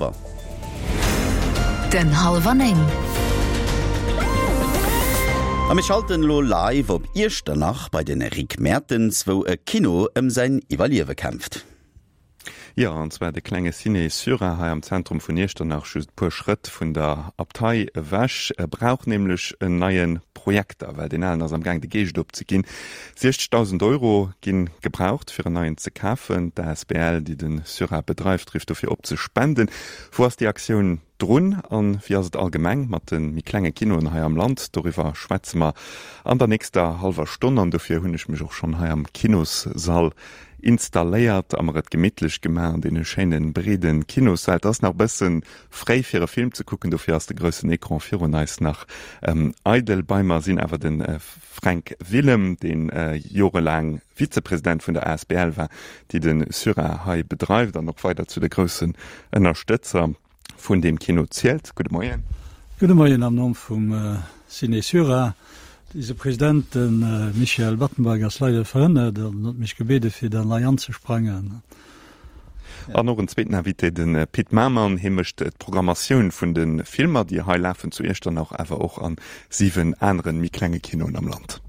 Hallwer. Den Hallwer 9. A mir schalten elo live op Iechternach bei den Rick Mertens, wou e Kino ëm säin Iwwerliewe kämpft. Jo, an zwar de klenge Ciné Syra hei am Zentrum vun Iechternach, just e puer Schrëtt vun der Abtei ewech, brauch nämlech en neie Projekter, well deen alen ass am Gaang de Geescht opzeginn. 60.000 Euro gi gebraucht, fir en neien ze kafen. D'asbl, déi de Syra bedreift, rifft dofir op ze spenden. Wou ass déi Aktioun drun an wéi ass et allgemeng mat de méi klenge Kinoen hei am Land? Doriwwer schwätze mer an der nächster hallwer Stonn an dofir hunn ech mech och schonn hei am Kinossall installéiert a mer et gemittlech gemaach an deene schéine breede Kinossäll. Et ass nach e bësse fréi fir e Film ze kucken, dofir ass de groussen Ecran virun eis nach eidel. Bei mer sinn awer de Fränk Willem, dee jorelaang Vizepresident vun der asbl war, déi de Syra hei bedreift an och weider zu de groussen Ënnerstëtzer vun deem Kino zielt. Gudde Moien. Gudde Moien am Numm vum Ciné Syra. Eise President, de Michel Battenberg, ass leider verhënnert an huet mech gebiede fir dann hei anzesprangen. An och en zweeten Invité, de Pit Mamann. Hie mécht d'Programmatioun vun de Filmer, déi hei lafen zu Iechternach, awer och a 7 anere méi klenge Kinoen am Land.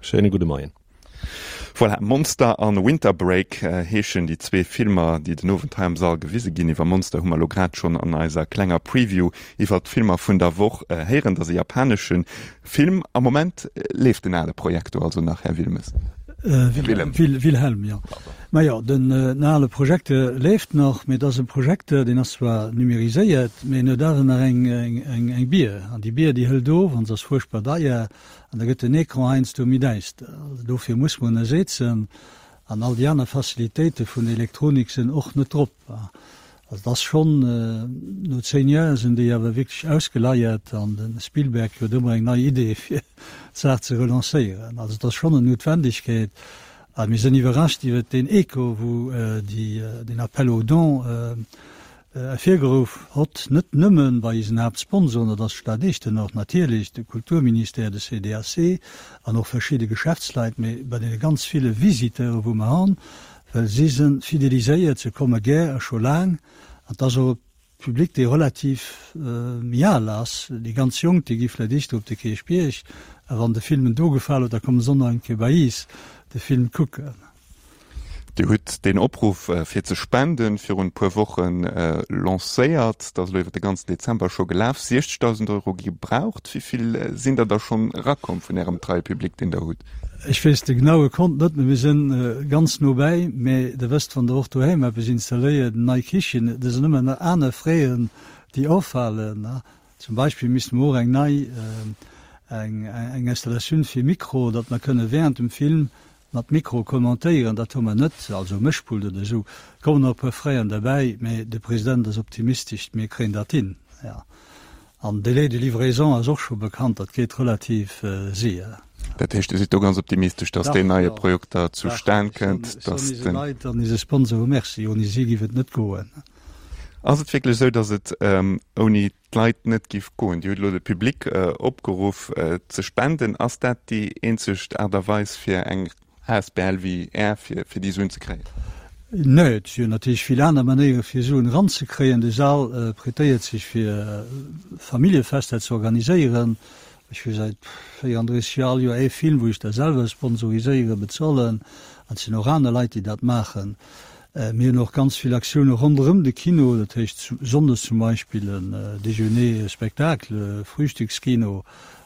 Schéine gudde Moien. Voilà, Monster an Winter Break heeschen déi zwee Filmer, déi den Owend hei am Sall gewise ginn. Iwwer Monster hu mer elo grad schonn an eiser klenger Preview iwwer d'Filmer vun der Woch héieren. Dat ass e japanesche Film. Am Moment leeft den ale Projektor also nach, Här Wilmes? Willem. Wilhelm, jo. Majo, den ale Projekter leeft nach, mee et ass e Projekter, deen ass zwar numériséiert, mee en huet awer nach eng Bier. An déi Bier, déi hëlt of an se ass fuerchtbar deier. An da gëtt den Ecran heiansdo méi däister. Also dofir muss mer ënnersetzen. An all déi aner Facilitéite vun der Elektronik sinn och net drop. Also et ass schonn, no 10 Joer sinn déi awer wierklech ausgeleiert an de Spielberg huet ëmmer eng nei Idee fir d'Saach ze relancéieren. Also et ass schonn en Noutwendegkeet. A mir sinn iwwerrascht iwwert deen Echo, wou déi, deen Appel aux dons ervirgeruff hott, net nëmme bei isen Haaptsponsoren, dat ass d'Stad Echternach natierlech, de Kulturministère, de CDAC an och verschidde Geschäftsleit, mee bei deene ganz ville Visiteure wou mer han, well si se fideliséiert, se komme gär a scho laang, an et ass och e Public dee relativ méi al ass, déi ganz Jonk déi gi vläicht éischter op de Kierchbierg, a wann de Film en do gefal huet, da komme se och nach eng Kéier bei is de Film kucken. Dir hutt deen Opruff fir ze spenden virun e puer Woche lancéiert. Dat ass elo iwwer de ganzen Dezember scho gelaf. 60.000 Euro gi gebraucht. Wéi vill sinn der da schonn erakomm vun Ärem treie Public, deen Der hutt? Ech weess de genaue Kont net, mee mir si ganz no bäi. Mee Der wësst, wann Der och doheim eppes installéiert, eng nei Kichen, et sinn ëmmer nach aner Fräen, déi offalen. Zum Beispill misste mer och eng nei eng Installatioun fir Mikro, datt mer kënne während dem Film mat Mikro kommentéieren. Dat hu mer net, also Mëschpult oder esou. Et kommen nach e puer Fräen derbäi, mä de President ass optimistesch, mir kréien dat hin. Jo. An Délai de livraison ass och scho bekannt, dat geet relativ séier. Dat heescht, Dir sidd do ganz optimistesch, datt deen neie Projekter zustan kënnt, datt den. Ech soen eise Leit an eise Sponsore Merci, ouni si géif et net goen. Ass et wierklech esou, datt et ouni d'Leit net giff goen? Dir hutt elo de Public opgeruff ze spenden. Ass dat déi eenzeg Aart a Weis fir eng asbl wéi Är fir déi Suen ze kréien? Nee, et si jo natierlech vill aner Manéiere fir Suen eranzekréien. De Sal prêtéiert sech fir Familljefester ze organiséieren. Ech hu säit 34 Joer all Joer ee Film wou ech da selwer sponsoriséieren, bezolen. An et sinn och aner Leit déi dat maachen. Mir hunn och ganz vill Aktioune ronderëm de Kino, dat heescht sonndes zum Beispill en Déjeuner spectacle, Frühstückskino,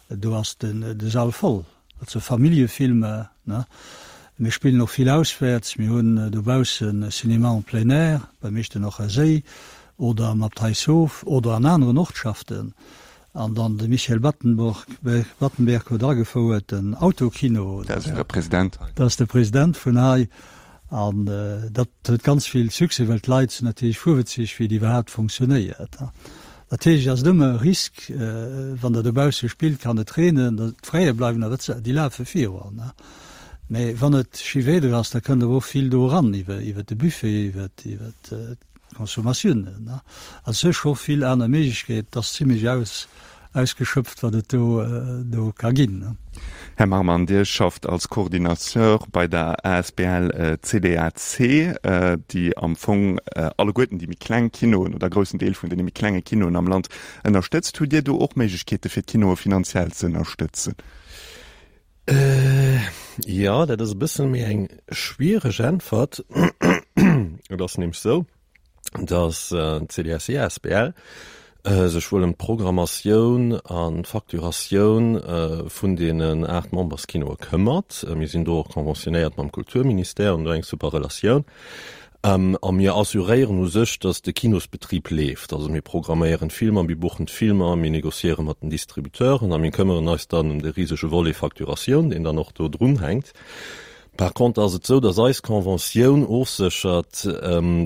do ass de Sall voll. Dat si Familljefilmer, ne. Mir spillen och vill auswäerts. Mir hunn dobaussen e Cinéma en plein air beim Echternacher Séi oder am Abteishof oder an aneren Ortschaften. An dann de Michel Battenborg, Battenberg huet agefouert den Autokino. Dat ass Äre President hei. Dat ass de President vun hei. An dat huet ganz vill Succès, well d'Leit sinn natierlech fuerwëtzeg, wéi et iwwerhaapt fonctionnéiert. Natierlech ass et ëmmer e Risk, wann Der dobausse spillt, kann et reenen, d'Fraie bleiwen awer, déi lafe virun. Mä wann et schi Wieder ass, da kënnt awer och vill do eran iwwer de Buffet, iwwer d'Consommatiounen. Also et si scho vill aner Méiglechkeeten. Et ass zimlech aus. Ausgeschöpft, wat et do do ka ginn. Här Marmann, Dir schafft als Coordinateur bei der asbl CDAC, déi am Fong alleguerten déi méi kleng Kinoen oder e groussen Deel vun deene méi klenge Kinoen am Land ënnerstëtzt. Hutt Dir do och Méiglechkeete fir d'Kinoe finanziell ze ënnerstëtzen? Jo, dat ass e bësse méi eng schwiereg Äntwert. Et ass nämlech esou, dass d'CDSE asbl sech wuel ëm d'Programmatioun an d'Facturatioun vun deenen 8 Memberskinoe këmmert. Mir sinn do och conventionnéiert mam Kulturministère, hunn do eng super Relatioun. A mir assuréieren u sech, dass de Kinosbetrib leeft. Also mir programméieren d'Filmer, mir buchen d'Filmer, mir négociéiere mat den Distributeuren a mir këmmeren eis dann ëm de risege Volet Facturatioun, deen dann och do drunhänkt. Par contre ass et esou, dass eis Conventioun ofséchert,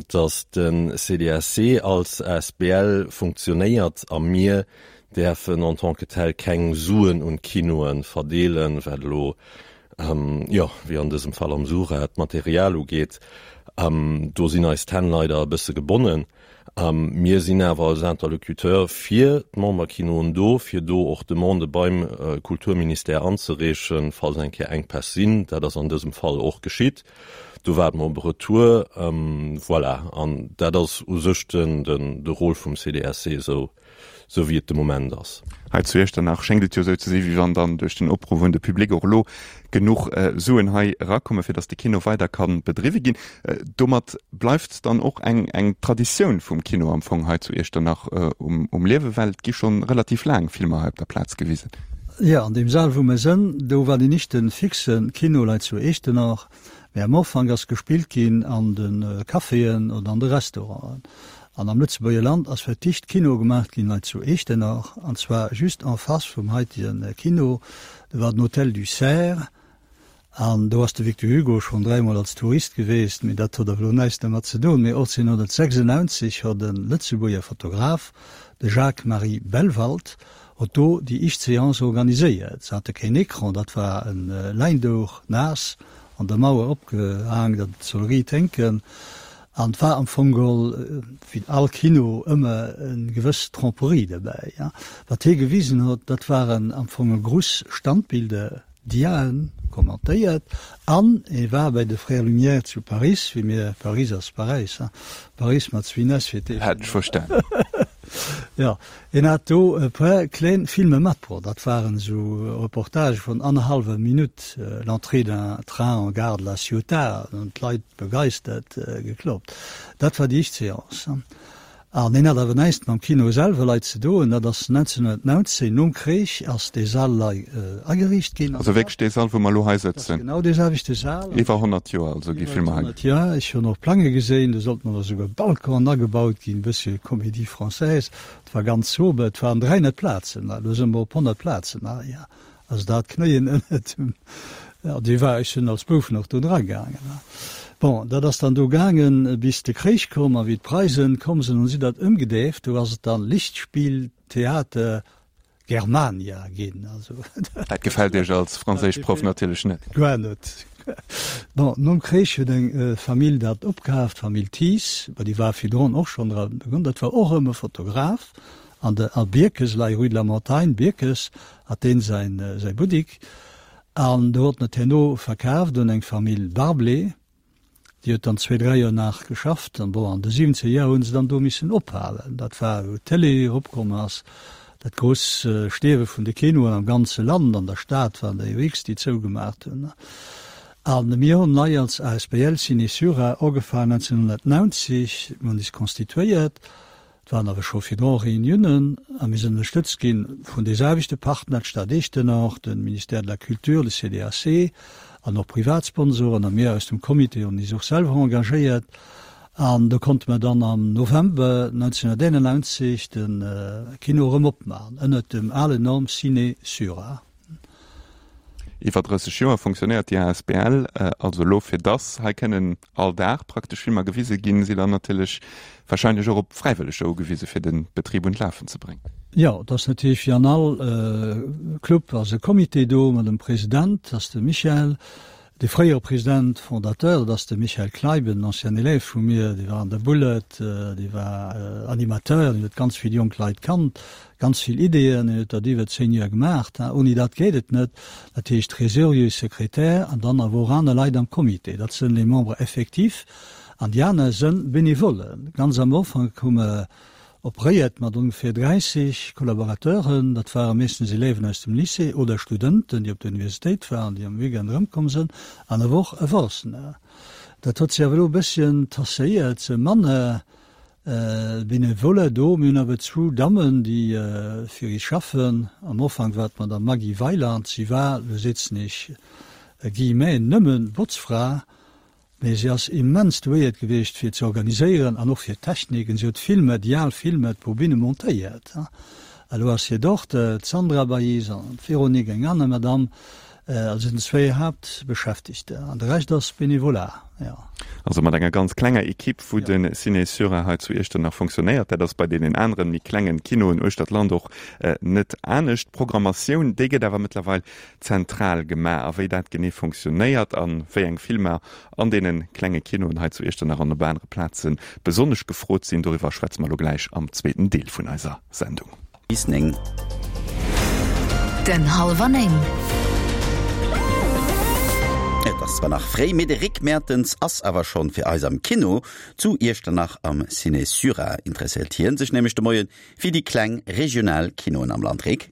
dass de CDSC als asbl funktionéiert a mir däerfen en tant que tel keng Suen un d'Kinoe verdeelen, wat elo, jo, wéi an dësem Fall am Sura, d'Material ugeet. Do sinn eis d'Hänn leider e bësse gebonnen. Mir sinn awer als Interlocuteur fir d'Memberkinoen do, fir do och Demandë beim Kulturministère anzereechen, falls eng Kéier Enkpäss sinn. Dat ass an dësem Fall och geschitt. Do waarde mer op e Retour. Voilà, an dat ass u sech de Rôle vum CDSC esou. sou wéi et de Moment ass. Hei zu Iechternach schéngt et jo esou ze si wéi wann dann duerch den Opruff un de Public och elo genuch Suen hei erakommen, fir datt de Kino weider ka bedriwwe ginn. Domat bleift dann och eng eng Traditioun vum Kino am Fong hei zu Iechternach um Liewen, well et gi schonn relativ laang Filmer hei op der Plaz gewisen. Jo, an deem Sal wou mer sënn, do war deen éischte fixe Kino lei zu Iechternach. Mä am Ufank ass gespillt ginn an de Caféen oder an de Restauranten. An am Lëtzebuerger Land ass fir d'éischt Kino gemaacht ginn hei zu Eechtenach, an zwar just en face vum haitege Kino. Do war den Hôtel du Cerf an do ass de Victor Hugo schonn dräimol als Tourist geweest, mee dat huet awer elo näischt dermat ze doen. Mee 1896 hott e Lëtzebuerger Fotograf, de Jacques-Marie Bellwald, hott do déi éischt Seance organiséiert. Se hate keen Ecran, dat war e Läindouch, naass an der Mauer opgehaang, datt et soll riit hénken. An et war am Fong geholl, wéi all Kino, ëmmer eng gewëss Tromperie derbäi. Wat hie gewisen huet, dat waren am Fong e gruss Standbilder, Diaen, kommentéiert. An e war bäi de Frères Lumière zu Paris, wéi mir, Paris ass Paräis, hein, Paris mat zwéin s fir d'éischt. Hat ech verstanen. Jo, hien hat do e puer kléin Filme matbruecht. Dat waren esou Reportagë vun annerhallwer Minutt, L'entrée d'un train en gare de la Ciotat, an hunn d'Leit begeistert gekloppt. Dat war déi éischt Seance. An hien hat awer näischt mam Kino selwer lei ze doen. Dat ass 1919, nom Krich, ass dee Sall lei ageriicht ginn. Also wierklech dee Sall, wou mer elo hei sëtzen? Dat ass genau dee selwechte Sal. Iwwer 100 Joer also gi Filmer hei. Iwwer 100 Joer. Ech hunn och Plange geséin, do sollten och esouguer Balconen agebaut ginn, e bëssche Comédie française. Et war ganz sober, et waren 300 Plazen, elo si mer op 100 Plazen hei. Also dat Knéien ënnert dem, ja, déi war, ech sinn als Bouf nach do dra gaangen. Bon, dat ass dann do gaangen, bis de Kréich koum a wéi d'Preisen komm sinn, hunn si dat ëmgedeeft, do ass et dann Lichtspieltheater Germania ginn. Also Dat gefält Iech als Franséischproff natierlech net. Guer net. Bon, nom Kréich huet eng Famill dat opkaaft, d'Famill Thies, ma déi war virdrun och schonn dra, dat war och erëm e Fotograf, An de a Bierkes, lei rue de la Montagne, Bierkes, hat deen säin säi Buttik. An do huet en et herno verkaaft un eng Famill Barblé. Déi huet dann zwee, dräi Joer nach geschafft. An bon, an de siwwenzeger Joer hu se dann do missen ophalen. Dat war, wou d'Télé eropkomm ass, dat grouss Stierwe vun de Kinoen am ganze Land. An der Stad waren der jo x, déi zougemaacht hunn. A mir hunn nei als asbl Ciné Sura ugefaangen 1990. Mir hunn is constituéiert. Et waren awer scho virdru Reuniounen a mir sinn ënnerstëtzt gi vun de selwechte Partner, d'Stad Eechtenach, de Ministère de la Culture, de CDAC an och privat Sponsoren. A mir aus dem Comité hunn is och selwer engagéiert. An do konnte mer dann am November 1991 de Kino erëm opmaachen ënnert dem alen Nom Ciné Sura. Iwwer 30 Joer funktionéiert déi asbl also elo. Fir dass hei kënnen all Dag praktesch Filmer gewise ginn, si dann natierlech warscheinlech och op Fräiwëlleger ugewise fir de Betrib un d'Lafen ze bréngen. Jo, et ass natierlech wéi an all Club ass e Comité do mat engem President, dat ass de Michel. De fréiere President fondateur, dat ass de Michael Kleiben, en ancien élève vu mir, dee war an der Bullet, dee war Animateur, deen huet ganz vill jonk Leit kannt, ganz vill Ideeën, deen huet dat iwwer 10 Joer gemaach. Ouni dat geet et net. Dat heescht Trésorier, Sekretär an dann awer och aner Leit am Comité. Dat sënn les membres effectifs an déi aner sënn Bénévolen. Ganz am Ufank hu mer Operéiert mat ongeféier 30 Collaborateuren, dat ware meeschtens Elèven aus dem Lycée oder Studenten, déi op der Universitéit waren, déi am Weekend erëmkomm sënn, an awer och Erwuessener. Dat huet sech awer elo e bësschen tasséiert, se manner Benevoler do. Mir hunn awer zwou Dammen, déi fir is schaffen. Am Ufank war d'Madame Maggy Weyland, si war, elo setzen ech Guillemets, nëmme Botzfra, Mee si ass immens douéiert gewiescht fir ze organiséieren an och fir d'Technik. Si huet Filmer, déi al Filmer, d'Bobine montéiert. Elo ass hir Dochter, d'Sandra bei is an d'Véronique, eng aner Madame. Also sinn zwéi Haaptbeschäftegter an de Rescht ass Bénévolat, jo. Also mat enger ganz klenger Equipe, wou de Ciné Sura hei zu Iechternach fonctionnéiert. Dat ass bei deenen aneren, méi klengen Kinoen uechter d'Land och net anescht. D'Programmatioun, déi gëtt awer mëttlerweil zentral gemaach. A wéi dat genee fonctionnéiert a wéi eng Filmer an deene klenge Kinoen hei zu Iechternach an op anere Plaze besonnesch gefrot sinn, doriwwer schwätze mer elo gläich am zweeten Deel vun eiser Sendung. Bis 9. Den Hallwer 9. Et ass zwar nach fréi, mee de Rick Mertens ass awer schonn fir eis am Kino zu Iechternach am Ciné Sura. Interesséiert hien sech nämlech de Moie fir déi kleng regional Kinoen am Land. Rick?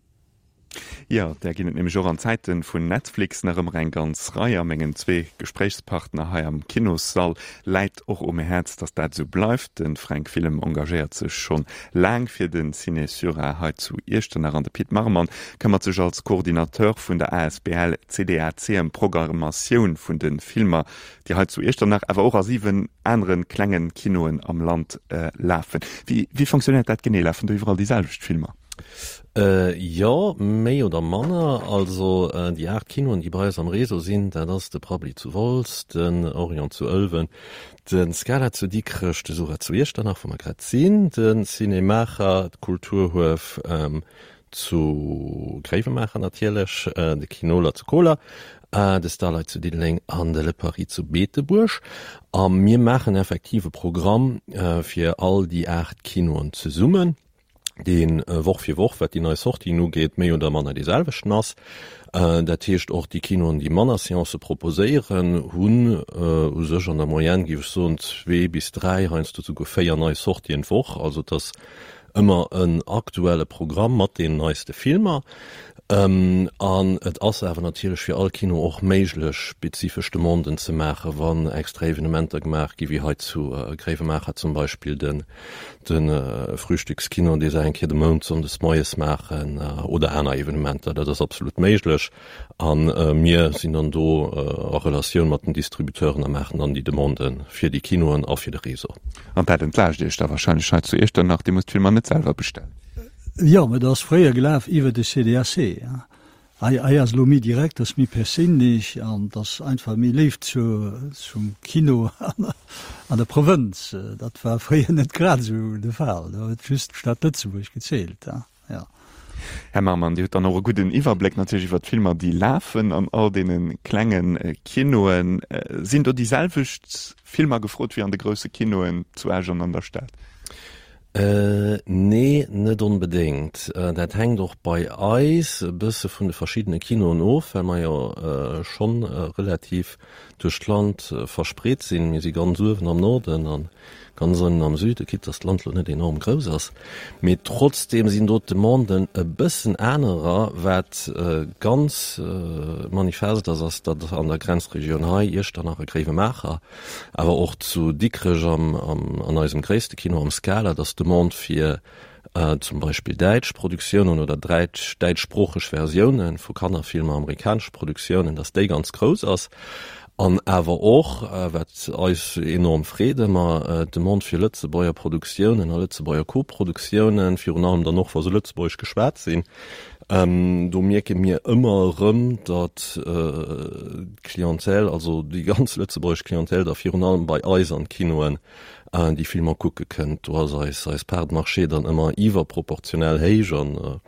Jo, där ginn et nämlech och an Zäite vun Netflix nach ëmmer eng ganz Rei. A mengen zwee Gespréichspartner hei am Kinossall läit och um Häerz, datt dat esou bleift. De Fränk Willem engagéiert sech schonn laang fir de Ciné Sura hei zu Iechternach an de Pit Marmann këmmert sech als Coordinateur vun der asbl CDAC ëm d'Programmatioun vun de Filmer, déi hei zu Iechternach, awer och a 7 anere klenge Kinoen am Land lafen. Wéi fonctionnéiert dat genee? Lafen do iwwerall déi selwecht Filmer? Jo, méi oder manner. Also déi 8 Kinoen, déi bei eis am Réseau sinn, dat ass de Prabbeli zu Wolz, den Orion zu Ëlwen, de Scala zu Dikrech, de Sura zu Iechternach, wou mer grad sinn, de Ciné Maacher, d'Kulturhuef zu Gréiwemaacher natierlech, de Kinoler zu Koler, de Starlight zu Diddeleng an de Le Paris zu Beetebuerg. A mir maachen effektiv e Programm fir all déi 8 Kinoen zesummen. dee Woch fir Woch, wat déi nei Sortien ugeet, méi oder manner dee selwechten ass. Dat heescht, och déi Kinoen, déi manner Seancë proposéieren, hunn u sech an der Moyenne, géif ech soen, zwee bis dräi, heiansdo souguer véier nei Sortien d'Woch. Also et ass ëmmer en aktuelle Programm mat deenen neiste Filmer. An et ass awer natierlech fir all Kino och méiglech, spezifesch Demanden ze maachen, wann extra Evenementer gemaach gi wéi hei zu Gréiwemaacher zum Beispill den De Frühstückskino, dee se eng Kéier de Mount sonndes moies maachen, oder aner Evenementer, dat ass absolut méiglech. A mir sinn dann do a Relatioun mat den Distributeuren a maachen dann déi Demandë fir déi Kinoen a fir de Réseau. An dat entlaascht Iech da wahrscheinlech hei zu Iechternach, Dir musst d'Filmer net selwer bestellen? Jo, mä dat ass fréier gelaf iwwer de CDAC. Hei hei ass elo méi direkt, ass méi perséinlech an et ass einfach méi Léift zu zum Kino an an der Provënz. Dat war fréier net grad esou de Fall, do huet just d'Stad Lëtzebuerg gezielt, jo. Här Marmann, Dir hutt dann och e gudden Iwwerbléck natierlech iwwer d'Filmer, déi lafen an all deene klenge Kinoen. Sinn do déi selwecht Filmer gefrot wéi an de grousse Kinoen zu Esch an an der Stad? Nee, net onbedéngt. Dat hänkt och bei eis e bësse vun de verschiddene Kinoen of, well mer jo schonn relativ duerch d'Land verspreet sinn. Mir si ganz uewen am Norden a ganz ënnen am Süden, quitte dass d'Land lo net enorm grouss ass. Mee trotzdeem sinn do d'Demanden e bëssen anerer. Wat ganz manifest ass, ass, datt an der Grenzregioun hei, Iechternach a Gréiwemaacher, Awer och zu Dikrech am, an eisem gréisste Kino am Scala, dass d'Demande fir zum Beispill däitsch Produktiounen oder dräitsch, däitschsproocheg Versiounen vu Kannerfilmer, amerikanesche Produktiounen, dass déi ganz grouss ass. An awer och, wat eis enorm freet ëmmer, d'Demande fir Lëtzebuerger Produktiounen a Lëtzebuerger Koproduktiounen, virun allem dann och, wa se lëtzebuergesch geschwat sinn. Do mierke mir ëmmer erëm, datt d'Clientèle, also déi ganz lëtzebuergesch Clientèle da virun allem bei eis an d'Kinoen déi Filmer kucke kënnt. Do ass eis eis Part de marché dann ëmmer iwwerproportionell héich an.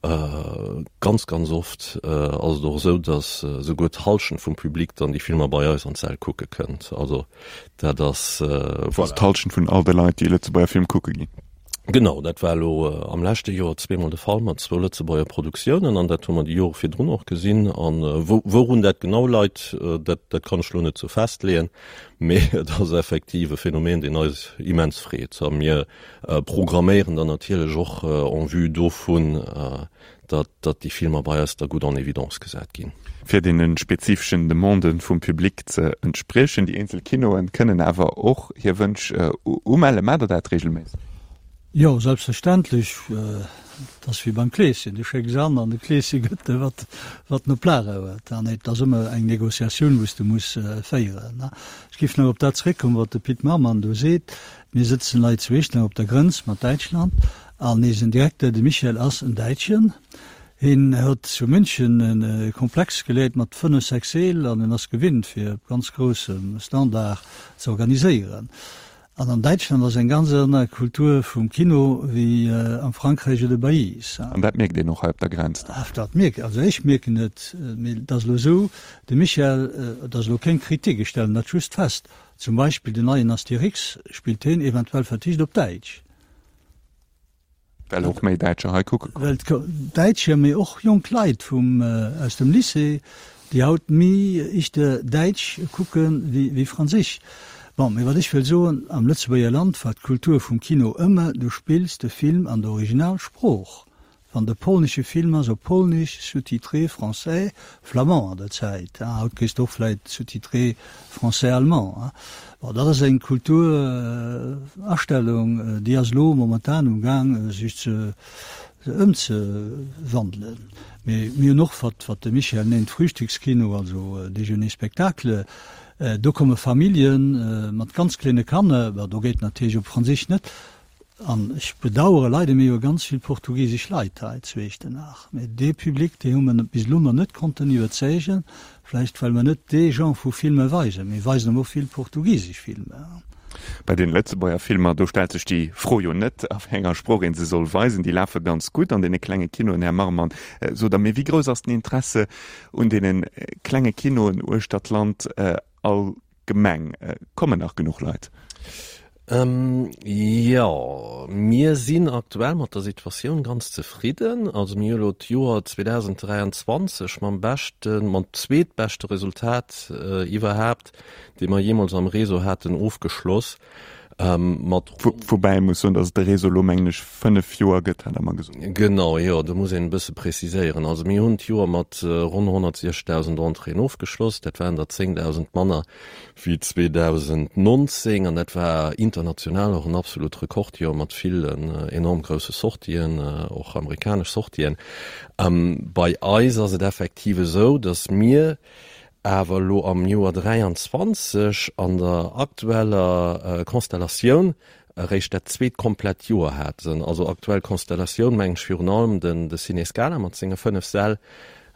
Ganz, ganz oft ass et och esou, datt esouguer d'Hallschent vum Public dann déi Filmer bei eis an d'Säll kucke kënnt. Also dat ass, voilà. Also d'Hallschent vun all de Leit, déi e Lëtzebuerger Film kucke ginn. Genau, dat war elo am leschte Joer zweemol de Fall mat zwou Lëtzebuerger Produktiounen an dat hu mer déi Jore virdrun och gesinn. An wourun dat genau leit, dat, dat kann ech elo net sou festleeën, mee et ass effektiv e Phänomen, deen eis immens freet. A mir programméieren dann natierlech och en vue dovun, datt datt déi Filmer bei eis da gutt en évidence gesat ginn. Fir deene spezifeschen Demandë vum Public ze entspriechen. Déi eenzel Kinoe kënnen awer och hir Wënsch umellen. Maacht Der dat reegelméisseg? Jo, selbstverständlech. Et ass wéi beim Kleeschen, du schécks an an de Kleesche gëtt der, wat wat en op Lager huet. An et ass ëmmer eng Negociatioun, wou s de muss féieren. Ech géif nach op dat zeréckkommen, wat de Pit Marmann do seet. Mir sëtzen lei zu Echternach op der Grënz mat Däitschland an eisen Direkter, de Michael, ass en Däitschen. Hien huet zu München e Komplex geleet mat 5, 6 Seel an en ass gewinnt fir op ganz groussem Standard ze organiséieren. An an Däitschland ass eng ganz aner Kultur vum Kino wéi am Frankräich oder bei iis. An dat mierkt een och hei op der Grenz dann? Dat mierkt, also ech mierken et, mee et ass elo esou, de Michael, et ass elo keng Kritik, ech stellen dat just fest, Zum Beispill den neien Astérix spillt heen eventuell verticht op Däitsch. Well och méi Däitscher hei kucke kommen. Well Däitscher, mee och jonk Leit vum, aus dem Lycée, déi haut méi ichter Däitsch kucke wéi Franséisch. Bon, mee wat ech wëll soen, am Lëtzebuerger Land war d'Kultur vum Kino ëmmer, du spills de Film an der Originalsprooch. Wann de polnesche Film ass op Polnisch, sous-titré français, flamand an der Zäit, haut kriss de och vläit sous-titré français-allemand. Bon, dat ass eng Kulturastellung, déi ass elo momentan um Gaang sech ze ëmzewandelen. Mee mir hunn och, wat wat de Michel nennt Frühstückskino, also Déjeuner-spectacle, do komme Famillje mat ganz kleene Kanner, bon do geet natierlech op Franséisch net, An ech bedauere leider, mir hu ganz vill portugisesch Leit hei zu Iechternach, mä dee Public, dee hu mer bis elo nach net konnten iwwerzeegen, vläicht well mer net dee Genre vu Filmer weisen. Mir weisen awer och vill portugisesch Filmer. Bei den Lëtzebuerger Filmer, do stellt sech déi Fro jo net, a wéi enger Sprooch ee se soll weisen. Déi lafe ganz gutt an deene klenge Kinoen, Här Marmann. Sot Der mir, wéi grouss ass den Interesse un deene klenge Kinoen uechter d'Land all Gemeng? Kommen nach genuch Leit? Jo, mir sinn aktuell mat der Situatioun ganz zefridden. Also mir hu elo d'Joer 2023 mam beschten, mam zweetbeschte Resultat iwwerhaapt, dee mer jeemools am Réseau haten, ofgeschloss. Mat Woubäi ee muss soen, datt et de Réseau elo, mengen ech, 5 Joer gëtt, hat Der mer gesot. Genau, jo, do muss een e bësse preziséieren. Also mir hunn d'Joer mat ronn 160.000 Entréeën ofgeschloss. Dat waren der 10.000 manner wéi 2019 an dat war international och en absolut Rekordjoer mat villen enorm grousse Sortien, och amerikanesch Sortien. Bei eis ass et effektiv esou, datt mir awer elo am Joer 23 an der aktueller Konstellatioun eréischt dat zweet komplett Joer haten. Also aktuell Konstellatioun mengen ech virun allem den de Ciné Scala mat senge 5 Säll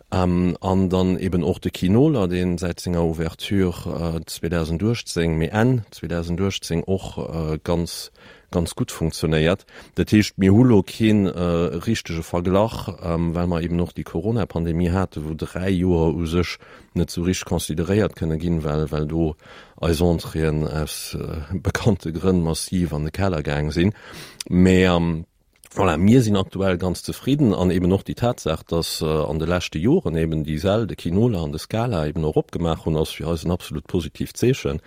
an dann eben och de Kinoler, dee säit senger Ouverture 2018, mee Enn 2018 och ganz ganz gutt funktionéiert. Dat heescht, mir hu lo kee richtege Verglach, well mer eben och déi Corona-Pandemie haten, wou 3 Joer u sech net esou richteg consideréiert kënne ginn, well well do eis Entréeën aus bekannte Grënn massiv an de Keller gaang sinn. Mä voilà, mir sinn aktuell ganz zefridden an eben och déi Tatsaach, dass an de leschte Joren eben déi Säll, de Kinola an de Scala eben och opgemaach hunn, ass fir eis en absolut positiivt Zeechen.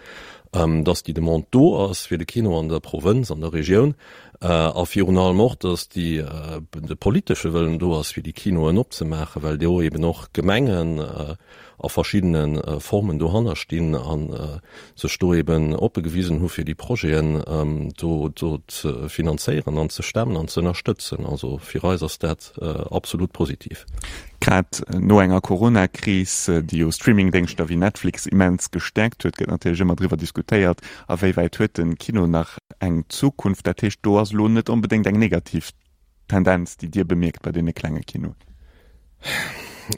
dass déi Demande do ass fir de Kino an der Provënz, an der Regioun, a virun allem och, dass déi, de politesche Wëllen do ass, fir déi Kinoen opzemaachen, well do eben och Gemengen a verschiddene Formen dohanner stinn a sech do eben oppe gewisen hu fir déi Projeten do do ze finanzéieren an ze stemmen an ze ënnerstëtzen. Also fir eis ass dat absolut positiv. Grad no enger Corona-Kris, déi jo Streaming-Déngschter wéi Netflix immens gestäerkt huet, gëtt natierlech ëmmer driwwer diskutéiert, a wéi wäit huet de Kino nach eng Zukunft. Dat heescht, do ass elo net onbedéngt eng negativ Tendenz, déi Dir bemierkt bei deene klenge Kinoen?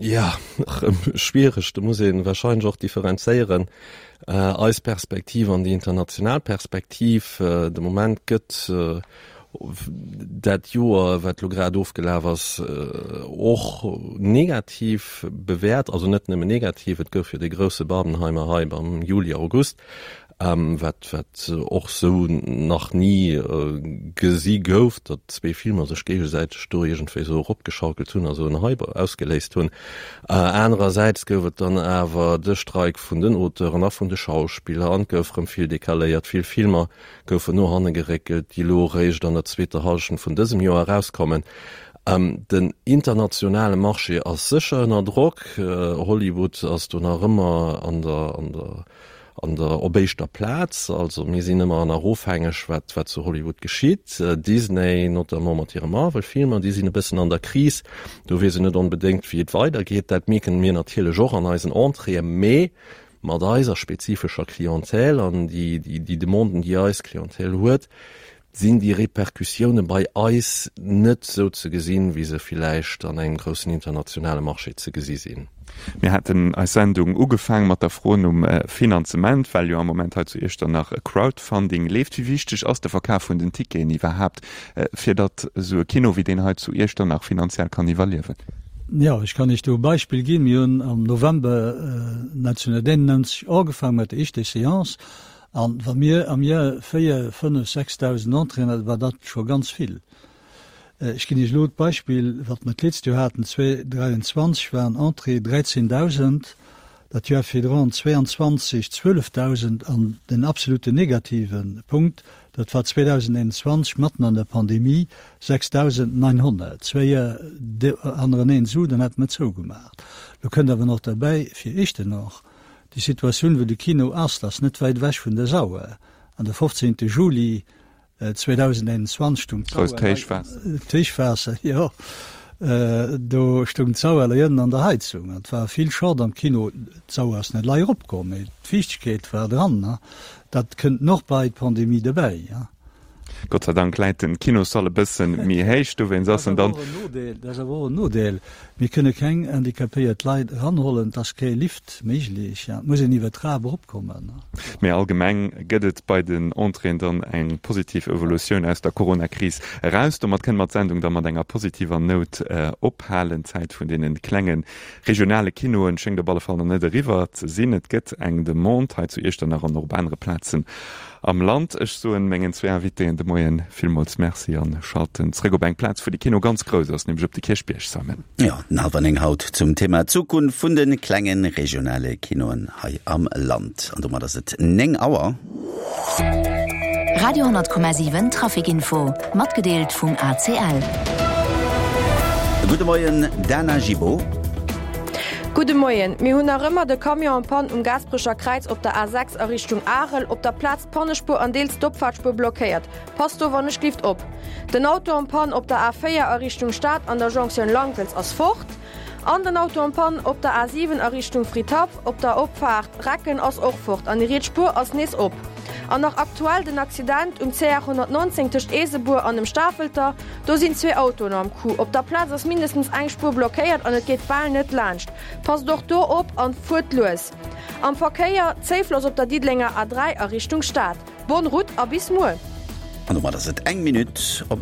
Jo, erëm schwiereg. Do muss ee warscheinlech och differenzéieren, eis Perspektiv an déi international Perspektiv. De Moment gëtt. Dat Joer, wat elo grad ofgelaf ass, och negativ bewäert. Also net nëmmen negativ, et gouf jo dee grousse Barbenheimer Hype am Juli, August, wat wat och sou nach ni gesi gouf, datt zwee Filmer sech géigesäiteg do iergendwéi sou eropgeschaukelt hunn a sou en Hype ausgeléist hunn. Anerersäits gouf et dann awer de Streik vun den Auteuren a vun de Schauspiller an et gouf rëm vill decaléiert, vill Filmer goufen no hanne geréckelt, déi elo eréischt an der zweeter Hallschent vun dësem Joer erauskommen. Den internationale Marché ass sécher ënner Drock. Hollywood ass do nach ëmmer an der, an der, an der, op éischter Plaz. Also mir sinn ëmmer nach ofhängeg, wat, wat zu Hollywood geschitt. Disney, notamment mat hire Marvel-Filmer, déi sinn e bëssen an der Kris. Do weess een net onbedéngt, wéi et weidergeet. Dat mierken mir natierlech och an eisen Entréeën. Mee mat eiser spezifescher Clientèle an déi Demanden, déi eis Clientèle huet, sinn déi Repercussioune bei eis net esou ze gesinn, wéi se villäicht an engem groussen internationale Marché ze gesi sinn. Mir haten eis Sendung ugefaang mat der Fro nom Finanzement, well jo am Moment hei zu Iechternach e Crowdfunding leeft. Wéi wichteg ass de Verkaf vun den Ticketen iwwerhaapt, fir datt esou e Kino wéi deen hei zu Iechternach finanziell kann iwwerliewen? Jo, ech kann Iech do e Beispill ginn. Mir hunn am November 1991 ugefaangen mat der éischter Seance. An wa mir am Joer 4, 5, 6.000 Entréeën haten, war dat scho ganz vill. Ech ginn Iech elo d'Beispill, wat mer d'letzt Joer haten, 2023 waren Entréeë 13.000, dat Joer virdrun, 22, 12.000 an den absoluten negative Punkt, dat war 2021, matten an der Pandemie, 6.900. Zwéi Joer hannereneen esou, dann hätte mer zougemaach. Lo kënnt awer nach derbäi, fir Echtenach, déi Situatioun, wou de Kino ass, dat ass net wäit ewech vun der Sauer. An de 15. Juli 2021 stung Grousst Héichwaasser. D'Héichwaasser, jo. Do stung d'Sauer lei ënnen an der Heizung an et war vill Schott am Kino. D'Sauer ass net lei eropkomm, mee d'Fiichtegkeet war dran. Dat kënnt noch bei d'Pandemie dobäi. Gott sei Dank läit den Kinossall e bëssen méi héich, dowéinst ass en dann. Dat ass awer och en Nodeel. Mir kënne keng handicapéiert Leit eranhollen, et ass kee Lift méiglech, et muss een iwwer d'Trap eropkommen. Mee allgemeng gëtt et bei den Entréeën dann eng positiv Evolutioun aus der Coronakris eraus. Domat kënne mer d'Sendung da mat enger positiver Nout ophalen. D'Zäit vun deene klenge regionale Kinoen schéngt op alle Fall nach net eriwwer ze sinn. Et gëtt eng Demande hei zu Iechternach an och op anere Plazen am Land. Ech soen mengen zwee Invitéen de Moien villmools Merci an schalten zréck op eng Plaz, wou de Kino ganz grouss ass, nämlech op de Kierchbierg. Simon. Jo, den hallwer 9 haut zum Thema Zukunft vun de klenge regionale Kinoen hei am Land. An domat ass et 9 Auer. Radio 10,7 Traficinfo, matgedeelt vum ACL. Gudde Moien, Dana Gibaud. Gudde Moien. Mir hunn nach ëmmer de Camion en panne um Gaasperecher Kräiz op der A6 a Richtung Arel. Op der Plaz d'Pannespuer an deels d'Opfaartspuer blockéiert. Passt do wannechglift op. Den Auto en panne op der A4 a Richtung Stad an der Jonktioun Lankelz ass fort. An den Auto en panne op der A7 a Richtung Fridhaff op der Opfaart Recken ass och fort an déi riets Spuer ass nees op. An nach aktuell den Accident um CR 119 tëscht Eesebuer an dem Stafelter. Do sinn zwee Autoen am Coup. Op der Plaz ass mindestens eng Spuer blockéiert an et geet bal net laanscht. Passt och do op an fuert lues. Am Verkéier, Zéifloss op der Diddelenger A3 a Richtung Stad. Bonne route a bis muer! An domat ass et eng Minutt op.